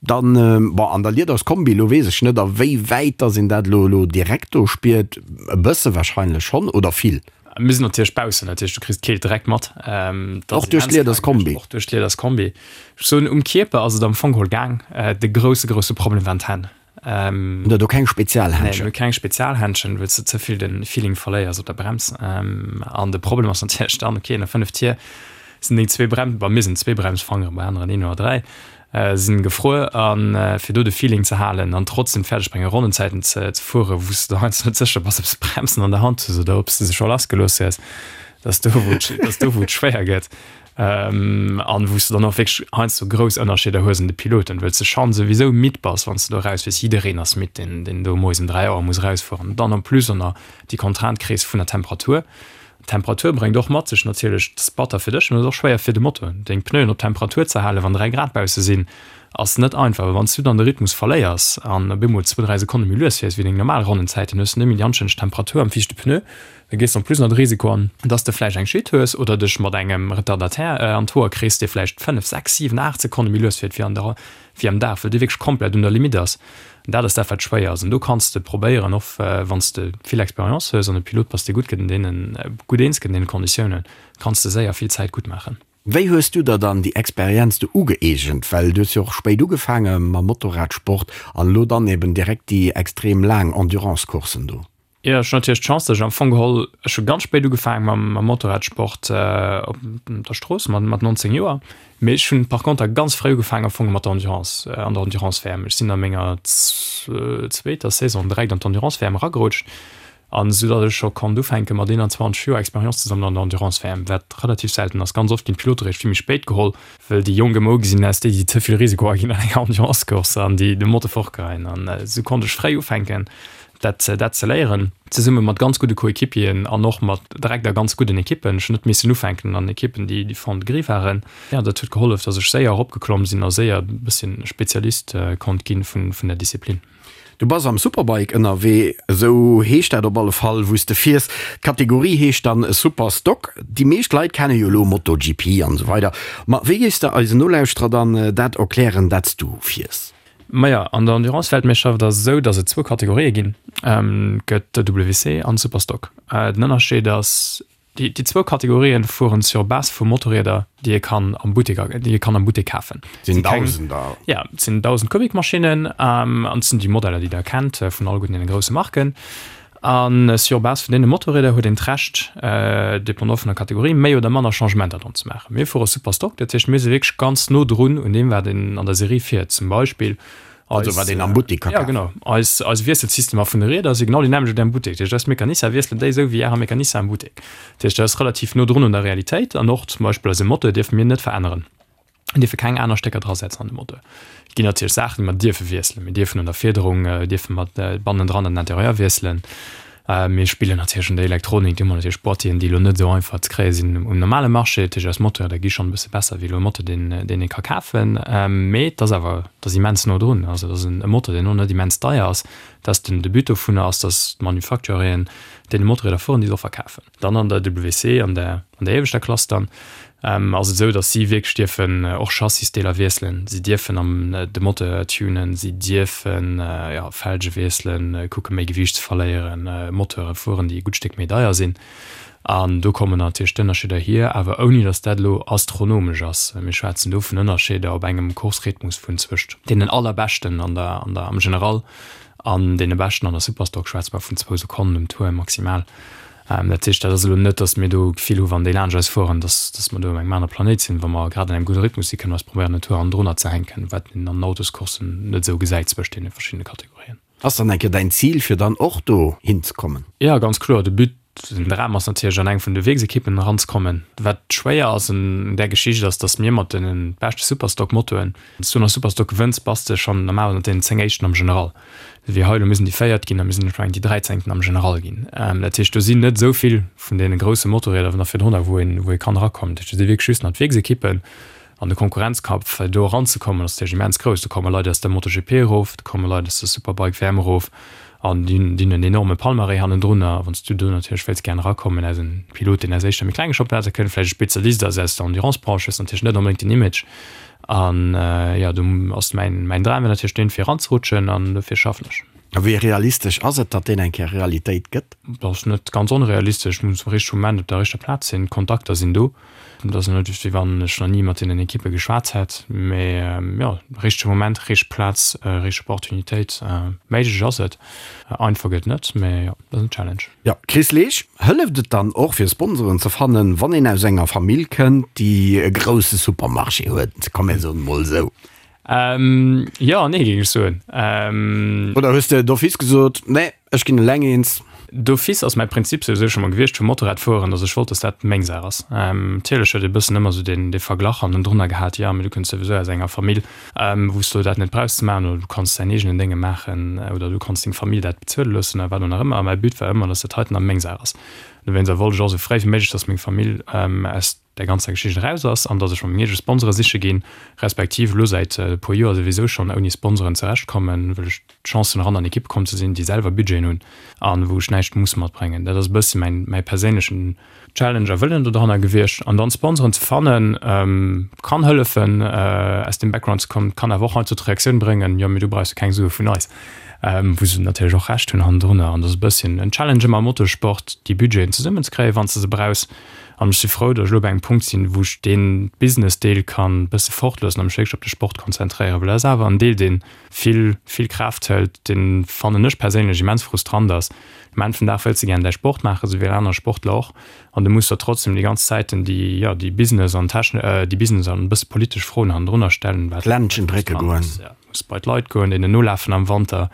Dann, bon, an der Liederskombi, elo weess ech net, a wéi wäit dass een dat elo elo direkt do spiert. E bësse wahrscheinlech schonn, oder vill? Mir sinn natierlech baussen, dat heescht du kriss d'Keelt direkt mat. Och duerch d'Liederskombi? Och duerch d'Liederskombi. Ech soen, um Kierper ass et am Fong geholl gaang. De grousse, grousse Problem waren d'Hänn. Hutt Der do keng Spezialhändschen? Nee, mir hu keng Spezialhändschen, well s de ze vill de Feeling verléiers op der Brems. An de Problem ass natierlech dann, okay, no 5 Tier sinn deng zwee Brem, bei mir sinn et zwee Bremsfangeren, bei aneren een oder dräi, sinn gefruer. A fir do de Feeling ze halen an trotzdem fäerdeg bréngen, Ronnenzäiten ze fueren, wou s de heiansdo net sécher bass, ob s de d'Bremsen an der Hand hues oder ob s de se scho lassgelooss hues, dat ass do, wou et, dat ass do, wou et schwéier gëtt. An wou s de dann och wierklech heiansdo grouss Ënnerscheeder hues an de Piloten, wëll s de schonn souwisou midd bass, wann s de do erausfiers. Jiddereen ass midd, deen, deen do moies um 3 Auer muss erausfueren. Dann en plus och nach déi Contrainte kriss vun der Temperatur. D'Temperatur bréngt och mat sech natierlech, et ass batter fir dech, mä et ass och schwéier fir de Motor. Deng Pneuen op Temperatur ze halen, wann 3 Grad bausse sinn, ass net einfach. Well wann s du dann de Rhythmus verléiers an op eemol zwou, dräi Sekonne méi lues fiers wéi deng normal Ronnenzäiten, hues du net méi déi anstänneg Temperatur am viischte Pneu. Da gees de en plus nach de Risiko an, dass de vläicht eng Chute hues oder dech mat engem Retardataire an d'Hoer kriss, dee vläicht 5, 6, 7, 8 Sekonne méi lues fiert wéi an der, wéi am Dag, well dee wierklech komplett un der Limite ass. An dat ass dat, wat schwéier ass. An do kanns de probéieren, och wann s de vill Expérience hues an e Pilot bass, dee gutt gëtt an deenen, gutt eens gëtt an deene Konditiounen, kanns de séier vill Zäit gutt maachen. Wéi hues du der dann déi Experienz do ugëeegent? Well du hues jo och spéit ugefaange mam Motorradsport an elo dann eben direkt déi extrem laang Endurance-Courssen do. Jo, ech hunn natierlech d'Chance, datt ech am Fong geholl, ech hu ganz spéit ugefaange mam mam Motorradsport op der Strooss mat mat 19 Joer, mee ech hunn par conter ganz fréi ugefaangen am Fong mat der Endurance, an der Endurance-WM. Ech sinn a menger zweeter Saison direkt an d'Endurance-WM eragerutscht an esou datt ech scho konnt ufänke mat 21 Joer Expérience ze sammelen an der Endurance-WM, wat relativ selten ass. Ganz oft ginn d'Pilote réischt vill méi spéit geholl, well déi Jonk ëmmer ugesinn als déi, déi ze vill Risiko aginn an enger Endurance-Course an déi de Motor fortgeheien. An esou konnt ech fréi ufänken. dat dat ze léieren, zesumme mat ganz gudde Coéquipieren an och mat direkt a ganz gudden Ekippen. Ech hunn net missen ufänken an Ekippen, déi déi Fond de gris waren. Jo, dat huet gehollef, datt ech séier eropgeklomm sinn a séier e bësschen Spezialist konnt ginn vun vun der Disziplin. Du bass am Superbike ënnerwee, esou heescht dat op alle Fall, wou s de fiers. D'Kategorie heescht dann Superstock. Déi meescht Leit kenne jo elo MotoGP an esou weider, ma wéi géifs de eisen Nolauschterer dann dat erklären, dat s du fiers? Maja, an der Endurance-Weltmeeschterschaft ass et esou, datt et zwou Kategorië ginn. Et gëtt de WC an de Superstock. Den Ënnerscheed ass, déi déi zwou Kategorien fueren sur base vu Motorrieder, déi ee kann am Buttek, déi ee kann am Buttek kafen. Et sinn Dausender. Ja, et sinn 1.000 Kubikmaschinnen an et sinn déi Modeller, déi Der kennt vun alleguerten deene grousse Marken. A sur base vun deene Motorrieder huet een d'Recht, dépendant vun der Kategorie, méi oder manner Changementer dran ze maachen. Mir fuere Superstock, dat heescht, mir si wierklech ganz no drun un deem, wat een an der Serie fiert. Zum Beispill eis. Also wat een am Buttek ka kafen. Ja, genau. Eis, eis Wiesselsystemer vun de Rieder si genau déi nämmlecht wéi am Buttek. Dat heescht, eis Mecanicien wiesselen déi esou wéi Ärer Mecanicien am Buttek. Dat heescht, dat ass relativ no drun un der Realitéit. An och zum Beispill eise Moteur dierfe mir net veränneren. Mir dierfe keng aner Stécker drasetzen an de Moteur. Et ginn natierlech Saachen, déi mer dierfe wiesselen. Mir dierfen un der Fiederung, dierfe mer bannendran an den Interieur wiesselen. Mir spillen natierlech un der Elektronik, do hu mer natierlech Boîtieren, déi elo net esou einfach ze kréie sinn um normale Marché. Dat heescht, eis Moteure gi schonn e bësse besser wéi elo e Moteur, deen deen ee ka kafen. Mee et ass awer, et ass immens no drun. Also et ass e Moteur, deen och net immens deier ass. Dass den de But dovunner ass, dass d'Manufacturien deene Motorrieder fueren, déi se och verkafen. Dann an der WC, an der an der ieweschter Klass dann, ass et esou, dass si wierklech dierfen och Chassisdeeler wiesselen, si dierfen am de Moteur tunen, si dierfen, jo, Felge wiesselen, kucke méi Gewiicht ze verléieren, Moteure fueren, déi e gutt Stéck méi deier sinn. An do kommen natierlech d'Ënnerscheeder hier, awer ouni datt dat elo astronomesch ass. Mir schwätzen do vun Ënnerscheeder op engem Course-Rhythmus vun zwëscht deenen allerbeschten an der, an der, am General an deene beschten an der Superstock schwätze mer vun zwou Sekonnen um Tour maximal. Dat heescht, dat ass elo net, datt mir do d'Gefill hu wann déi laanscht eis fueren, datt, datt mer do op engem anere Planéit sinn. Wa mer grad an engem gudde Rhythmus sinn, kënne mer eis probéieren en Tour hannendrunner ze hänken, wat een an den Autoscourssen net esou gesäit zwëscht deene verschiddene Kategorien. Ass dann eng Kéier däin Zil fir dann och do hinzekommen? Jo, ganz kloer. De But, den Dram ass natierlech an eng vun de Wierksekippen eranzekommen. Wat schwéier ass un där Geschicht ass, datt mir mat de beschte Superstock-Motoen, wann s du an der Superstock gewënns, bass de schonn normalerweis ënnert deenen 10 éischten am General. Wéi hei elo, mir sinn déi Véiert ginn a mir sinn ech mengen déi Dräizéngten am General ginn. Dat heescht, do sinn net esou vill vun deene grousse Motorrieder nach virdrunner, wou een, wou ee kann erakommen. Dat heescht, do si wierklech just nach d'Wierksekippen. An de Konkurrenzkampf, fir do eranzekommen, ass natierlech immens grouss. Do komme Leit aus der MotoGP erof, do komme Leit aus der Superbike WM erof an déi hunn déi hunn en enorme Palmarès hannendrunner. Wann s du do natierlech wéilts gären erakommen als en Pilot, deen aus éischter méi klenge Championnater kënnt, vläicht e Spezialist ass aus der Endurance-Branche, hues natierlech net onbedéngt den Image. An jo, do ass mäin mäin Dram wier natierlech deen, fir eranzerutschen an dofir schaffen ech. A wéi realistesch ass et, datt deen eng Kéier Realitéit gëtt? Dat ass net ganz onrealistesch. Muss am richtege Moment op der richter Plaz sinn. D'Kontakter sinn do. Et ass net wéi wann ech nach ni mat deenen Ekippe geschwat hätt, mee jo, richtege Moment, richteg Plaz, richteg Opportunitéit. Méiglech ass et, einfach gëtt et net, mee jo, dat ass en Challenge. Jo, Chris Leesch, hëlleft et dann och fir Sponsoren ze fannen, wann een aus enger Famill kënnt, déi e grousse Supermarché huet, komm mir soen emol esou? Jo an nee, géing ech soen. Oder hues de d'office gesot, nee, Ech ginn eleng eens. D'office ass mäi Prinzip souwisou scho mol gewiescht vum Motorradfueren, dass ech wollt, dass dat meng Saach ass. Natierlech huet ee bëssen ëmmer esou deen dee Verglach hannendrunner gehat, jo, mee du kënns souwisou aus enger Famill, wou s du dat net brauchs ze maachen oder du kanns däin eegenen Dénge maachen oder du kanns deng Famill dat bezuele loossen oder wat och nach ëmmer. A mäi But war ëmmer, dass dat heiten a meng Saach ass. Dowéinster wollt ech och esou fréi wéi méiglech, dass meng Famill aus där ganzer Geschicht eraus ass an dass ech mer meng eege Sponsore siche ginn, respektiv elo säit e puer Joer souwisou schonn ouni Sponsoren zurechtkommen, wëll ech d'Chance hunn eran an Ekippe komm ze sinn, déi selwer Budgeten hunn a wou ech näischt muss matbréngen. Dat ass e bësse mäin, mäi perséinlechen Challenge a Wëllen dodranner gewiescht. An dann Sponsoren ze fannen, kann hëllefen aus deem Background ze kommen, kann awer och heiansdo d'Reaktioun bréngen, jo mee du brauchs jo keng Sue vun eis, wou se natierlech och Recht hunn hannendrunner. An dat ass e bësschen en Challenge ëmmer am Motorsport, déi Budgeten zesummenzekréien, wann s de se brauchs. An ech si frou, datt ech elo bei engem Punkt sinn, wou ech dee Business-Deel kann e bësse fortloossen a mech wierklech op de Sport konzentréieren, well dat ass awer en Deel, dee vill, vill Kraaft hëlt, dee fannen ech perséinlech immens frustrant ass. Um Enn vum Dag wëlls de gären däi Sport maachen, esou wéi all aner Sportler och, an du muss der trotzdem déi ganz Zäiten déi, jo, déi Business an techn-, déi Business an e bësse politesch Froen hannendrunner stellen, wat D'Ländchen drécke goen. Muss bei d'Leit goen, deenen nolafen am Wanter,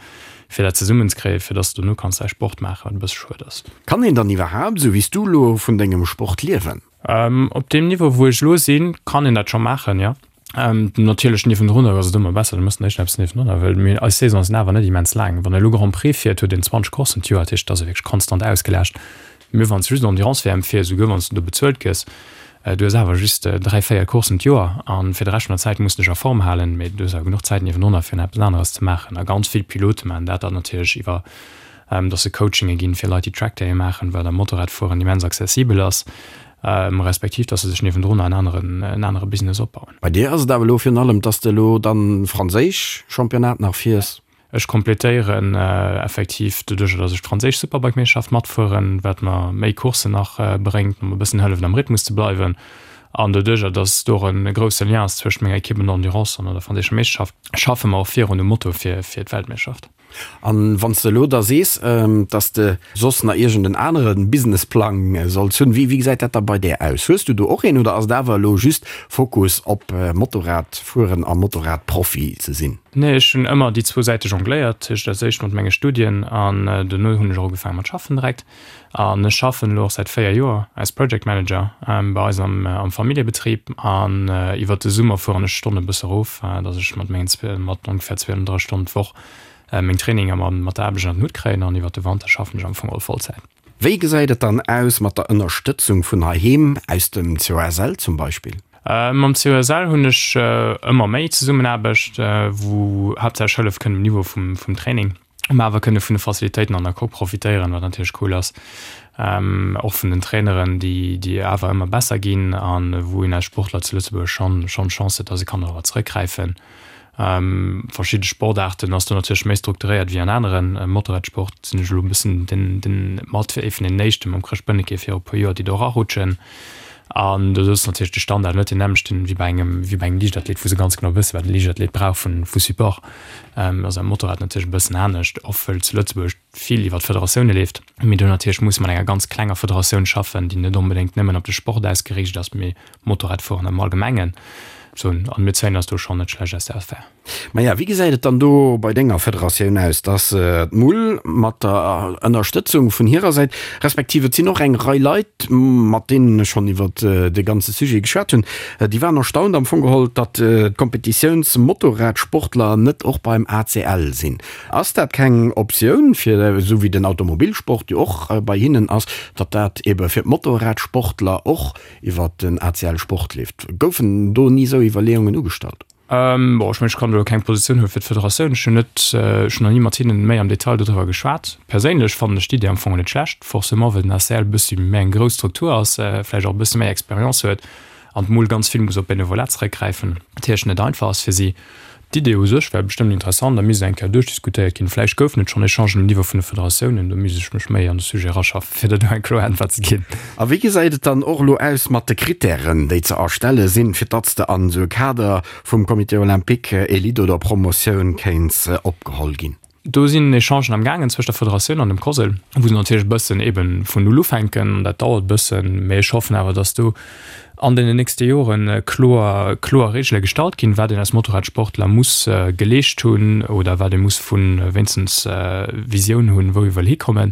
fir dat zesummen ze kréien, fir dass de dono kanns däi Sport maachen, wat e bësse schued ass. Kann een dann iwwerhaapt, esou wéi s du elo, vun dengem Sport liewen? Op deem Niveau, wou ech elo sinn, kann een dat scho maachen, jo. Natierlech niewendrunner ass et ëmmer besser, du méchs nach eppes niewendrunner, well mir, eis Saisone sinn awer net immens laang. Wann e elo Grand Prix fiert, huet een 20 Courssen d'Joer, dat heescht, et ass e wierklech konstant ausgelaascht. Mee wann s de just Endurance-WM fiers, esouguer wann s de do bezuelt gëss, du hues awer just 3, 4 Courssen d'Joer a fir de Rescht vun der Zäit muss de dech a Form halen. Mee du hues awer genuch Zäit niewendrunner fir nach eppes aneres ze maachen. A ganz vill Pilote maachen dat dann natierlech iwwer, dass se Coachinge ginn fir Leit, déi Trackdaye maachen, wat am Motorradfueren immens accessibel ass, respektiv dass se sech niewendrunner en aneren, en anere Business opbauen. Bei dir ass et awer elo virun allem, dass de elo dann franséisch Championnat nach fiers. Ech kompletéieren effektiv doduercher, dass ech d'franséisch Superbike-Meeschterschaft matfueren, wat mer méi Courssen nach bréngt, mer e bëssen hëlleft am Rhythmus ze bleiwen. An doduercher, dass do och e grousse Lien ass zwëscht menger Ekipp an der Endurance an der franséischer Meeschterschaft, schaffe mer och virun um Moto fir d'Weltmeeschterschaft. An wann s de elo da sees, dass de soss nach iergend en anere Businessplang solls hunn, wéi gesäit dat da bei där aus? Hues du do och een oder ass et awer elo just Fokus op Motorradfueren a Motorradprofi ze sinn? Nee, ech hunn ëmmer déi zwou Säite jongléiert, dat heescht als éischt mat menge Studien an dono hunn ech och ugefaange mat schaffen direkt. An ech schaffen elo och säit 4 Joer als Project Manager bei eis am am Familljebetrib an iwwert de Summer fueren ech d'Stonne e bësse erof, dass ech mat mengen mat ongefähr 32 Stonnen d'Woch meng Traininger mat der Aarbecht ënner den Hutt kréien an iwwert de Wanter schaffen ech am Fong all Vollzäit. Wéi gesäit et dann aus mat der Ënnerstëtzung vun heiheem, aus dem COSL zum Beispill? Mam COSL hunn ech ëmmer méi Zesummenaarbecht, wou haaptsächlech Hëllef kënnt um Niveau vum Training. Mä awer kënne vun de Facilitéiten an der Coque profitéieren, wat natierlech cool ass. Och vun den Traineren, déi, déi awer ëmmer besser ginn a wou een als Sportler zu Lëtzebuerg schonn, schonn d'Chance huet, dass e kann dorobber zeréckgräifen. Verschidde Sportaarten ass do natierlech méi strukturéiert wéi an aneren. Motorradsport sinn ech elo e bëssen den, den, mat ee vun den éischten mam Chrëscht Bönneke viru e puer Joer, déi do erarutschen. An do ass natierlech de Standard net deen nämmlechten wéi bei engem, wéi bei engem Liichtathlet, wou se ganz genau wëssen, wat e Liichtathlet brauch vu, vu Support. Ass am Motorrad natierlech e bëssen anescht, och wëll zu Lëtzebuerg vill iwwer d'Federatioune leeft. Mee do natierlech musse mat enger ganz klenger Federatioun schaffen, déi net onbedéngt nëmmen op de Sport ausgeriicht ass, mee Motorradfueren am Allgemengen. Sou, an mir zéien eis do schonn net schlecht aus der Affär. Maja, wéi gesäit et dann do bei denger Federatioun aus? Dass d'Mull mat der Ënnerstëtzung vun hirer Säit, respektiv et sinn och eng Rei Leit, mat deenen ech schonn iwwer de ganze Sujet geschwat hunn, déi waren erstaunt am Fong geholl, datt d'Kompetitiouns-Motorradsportler net och beim ACL sinn. Ass dat keng Optioun, fir, esou wéi den Automobilsport jo och bei hinnen ass, datt dat ebe fir d'Motorradsportler och iwwer den ACL Sport leeft? Goufen do ni esou Iwwerleeungen ugestallt? Bon, ech mengen, ech kann do elo keng Positioun huele fir d'Federatioun. Ech hunn net, ech hunn nach ni mat hinnen méi am Detail dodriwwer geschwat. Perséinlech fannen ech d'Idee am Fong net schlecht, forcément well den ACL e bëssi méi eng grouss Struktur ass, vläicht och e bësse méi Expérience huet an d'Mol ganz vill muss op Benevolat zeréckgräifen, wat natierlech net einfach ass fir si. D'Idee u sech wär bestëmmt interessant a misst eng Kéier duerchdiskutéiert ginn. Vläicht goufen et schonn Echangen um Niveau vun de Federatiounen, do misst ech mech méi an de Sujet eraschaffen, fir der do eng kloer Äntwert ze ginn. A wéi gesäit et dann och elo aus mat de Krittären, déi ze erstelle sinn, fir datt s de an esou e Kader vum Comité olympique, Elite oder Promotioun, kéints opgeholl ginn? Do sinn Echangen am gaangen zwëscht der Federatioun an dem COSL, wou se natierlech e bëssen ebe vun Null ufänken. Dat dauert e bëssen, mä ech hoffen awer, datt do an deenen nächste Jore kloer, kloer Reegele gestallt ginn, wat een als Motorradsportler muss geleescht hunn oder wat ee muss vu wéinstens Visioun hunn, wou ee wëll hikommen,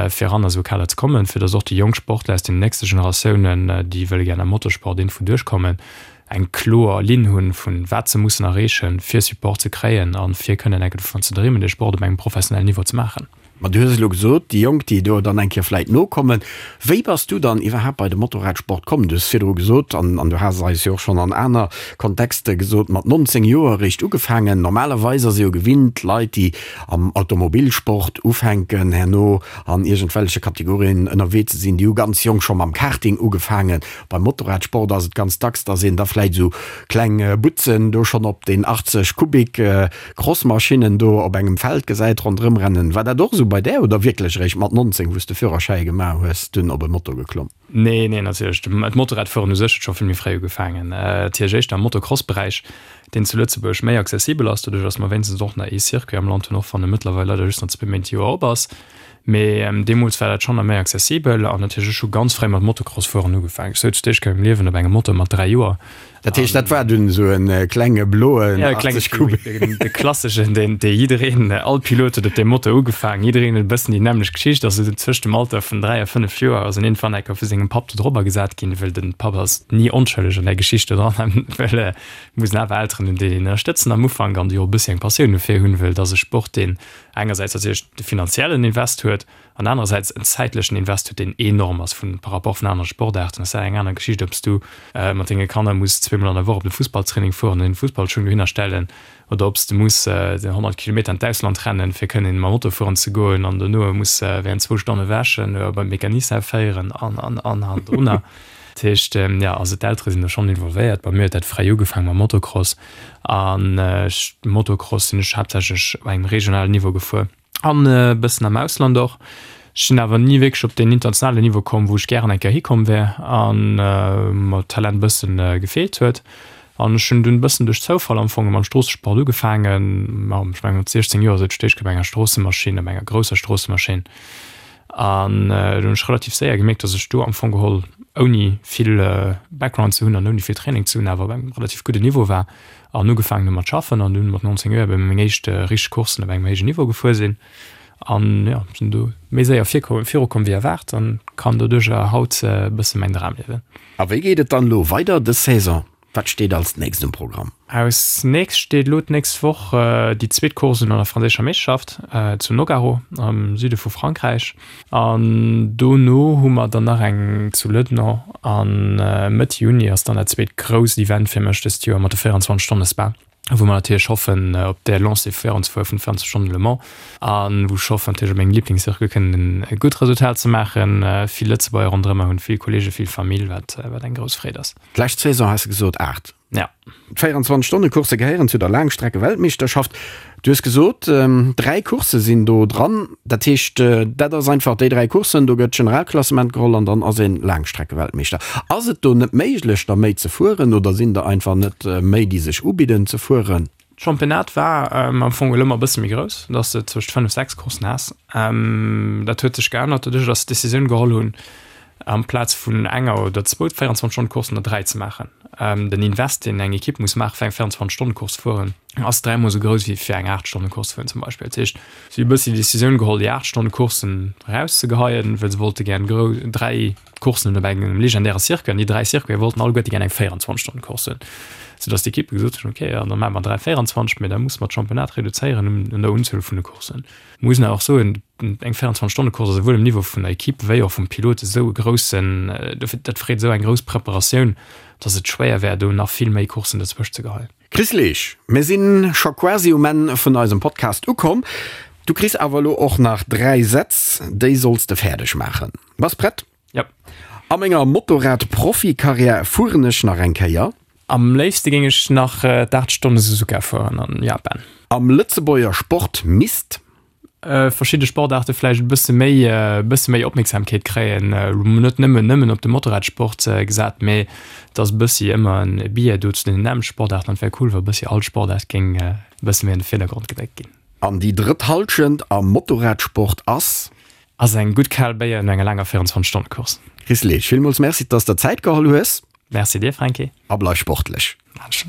fir eran a sou e Kader ze kommen, fir datt och déi jonk Sportler aus den nächste Generatiounen, déi wëlle gär am Motorsport iergendwou duerchkommen, eng kloer Linn hunn, vun wat se mussen erreechen, fir Support ze kréien a fir kënnen enke dovun ze dreemen, dee Sport op engem professionellen Niveau ze maachen. Ma du hues elo gesot, déi Jonk, déi do dann eng Kéier vläit nokommen. Wéi bass du dann iwwerhaapt bei de Motorradsport komm? Du hues virdru gesot, an an du has et eis jo och schonn an aner Kontexte gesot, mat 19 Joer eréischt ugefaangen. Normalerweis ass ee jo gewinnt, Leit, déi am Automobilsport ufänken, herno an iergendwelleche Kategorien ënnerwee ze sinn, déi hu ganz jonk scho mam Karting ugefaangen. Beim Motorradsport ass et ganz dacks, dass een da vläit esou kleng Butzen do schonn op den 80 Kubik Crossmaschinnen do op engem Feld gesäit ronderëm rennen. War dat och esou bei där oder wierklech eréischt mat 19, wou s de Führerschäi gemaach hues, dunn op e Moto geklomm? Nee, nee, natierlech. D'Motorradfueren u sech huet scho vill méi fréi ugefaangen. Natierlech éischter am Motocross-Beräich, deen zu Lëtzebuerg méi accessibel ass, doduerch dass mer wéinstens och nach ee Circuit am Land hunn, och wann e mëttlerweil leider just nach zwee Méint d'Joer op ass. Mee deemools war dat schonn nach méi accessibel an natierlech ech hu ganz fréi mat Motocross fueren ugefaangen. Ech souz d'éischt Kéier am Liewen op engem Moto mat 3 Joer. Dat heescht dat war dunn esou en klenge bloen 80 Kubik? De klasseschen, deen dee jiddereen, all Pilot huet op deem Moto ugefaangen. Jiddereen huet e bëssen déi nämmlecht Geschicht. Also tëscht dem Alter vun 3 a 5 Joer ass en iergendwann eng Kéier vu sengem Papp do drobber gesat ginn, well den Papp ass ni onschëlleg an där Geschicht do dran, well et mussen awer Elteren hunn, déi een ënnerstëtzen am Ufank an déi och e bëssi eng Passioun dofir hunn, well et ass e Sport, deen engersäits natierlech de finanziellen Invest huet an anerersäits en zäitlechen Invest huet, deen enorm ass vun par rapport vun anere Sportaarten. Ass dat eng aner Geschicht, ob s du mat denge Kanner muss zweemol an der Woch op de Fussballtraining fueren an den Fussballschung dohinner stellen oder ob s de muss 100 Kilometer an d'Ausland rennen, fir kënnen mam Auto fueren ze goen an dono muss während zwou Stonne wäschen oder beim Mecanicien féieren an, an, an hannendrunner. Dat heescht, jo, also d'Eltere sinn do schonn involvéiert. Bei mir huet dat fréi ugefaangen mam Motocross. An Motocross sinn ech haaptsächlech op engem regionalen Niveau gefuer an e bëssen am Ausland och. Ech sinn awer ni wierklech op deen internationalen Niveau komm, wou ech gären eng Kéier hikomm wär an mer d'Talent e bëssen gefeelt huet. An ech hunn dunn e bëssen duerch Zoufall am Fong mam Stroossesport ugefaangen. Ma ech mengen mat 16 Joer sot ech d'éischt Kéier op enger Stroossemaschinn, op enger grousser Stroossemaschinn. An do hunn ech relativ séier gemierkt, dass ech do am Fong geholl, ouni vill Background ze hunn an ouni vill Training ze hunn, awer op engem relativ gudden Niveau war an ugefaangen hu mat schaffen an dunn mat 19 Joer ebe meng éischt richteg Courssen op engem héijen Niveau gefuer sinn. An jo, sinn do méi séier virkomm, virukomm wéi erwaart an kann doduercher haut e bësse mäin Dram liewen. A wéi geet et dann elo weider dës Saison? Wat steet als nächst um Programm? Als nächst steet elo d'nächst Woch déi zweet Course un an der franséischer Meeschterschaft zu Nogaro am Süde vu Frankräich. An dono hu mer dann nach eng zu Lëdno a Mëtt Juni ass dann dat zweet grousst Event fir mech dëst Joer mat de 24 Stonne Spa. Wou mer natierlech hoffen op där Lancée virun ze fueren vun 24 Stonnen Le Mans a wou ech hoffen natierlech op mengem Liblingscircuit kënnen e gutt Resultat ze maachen. Vill Lëtzebuerger ronderëm mer hunn, vill Kolleegen, vill Famill, wat wat eng grouss Freed ass. D'lescht Saison has de gesot 8. Ja. D'Véierenzwanzeg Stonne Coursse gehéieren zu der Laangstrecke-Weltmeeschterschaft. Du hues gesot, 3 Coursse sinn do dran. Dat heescht, dat ass einfach déi 3 Courssen, do gëtt d'Generalklassement geholl an dann ass een Laangstreckeweltmeeschter. Ass et do net méiglech, der méi ze fueren oder sinn der einfach net méi, déi sech ubidden ze fueren? D'Championnat war am Fong elo ëmmer e bësse méi grouss, dass de zwëscht 5, 6 Courssen has. Dat huet sech geännert doduerch, dass se d'Decisioun geholl hunn, amplaz vun enger oder zwou 24 Stonnen Courssen der 3 ze maachen. Den Invest deen eng Equipe muss maachen fir eng 24 Stonnen Course ze fueren ass dräimol esou grouss wéi fir eng 8 Stonnen Course ze fueren zum Beispill. Dat heescht si hu e bëssi déi Decisioun geholl déi 8 Stonnen Courssen erauszegeheien, well se wollte gären grou 3 Courssen hunn op engem legendäre Circuit an déi 3 Circuite wollten alleguerte gären eng 24 Stonnen Course hunn, soudass d'Equippe gesot hunn, okay, dann maache mer 3 24, mee da musse mer d'Championnat reduzéieren un der Unzuel vun de Courssen. Muss een awer och soen, eng 24 Stonne Course ass esouwuel um Niveau vun der Equipe wéi och vum Pilot esou e groussen, dat freet esou eng grouss Preparatioun, datt et schwéier wär do nach vill méi Courssen dozwëscht ze geheien. Chris Leesch, mir sinn scho quasi um Enn vun eisem Podcast ukomm. Du kriss awer elo och nach 3 Sätz, déi solls de fäerdeg maachen. Bass prett? Jep. A menger Motorrad-Profikarriär fueren ech nach eng Kéier. Am léifste géing ech nach d'8 Stonne Suzuka fueren an Japan. Am Lëtzebuerger Sport misst. Verschidde Sportaarte vläicht e bësse méi e bësse méi Opmierksamkeet kréien. Net nëmmen nëmmen op de Motorradsport gesat, mee et ass e bëssi ëmmer en Biais do zu den nämmlechte Sportaarten an et wär cool, wa e bëssi all Sportaart géing e bësse méi an de Virdergrond gedréckt ginn. An déi drëtt Hallschent am Motorradsport ass. Ass eng gutt kal Béier no enger laanger 24 Stonne Course. Chris Leesch, villmools Merci, dass der Zäit geholl hues. Merci dir Franky. A bleif sportlech. Maan ech.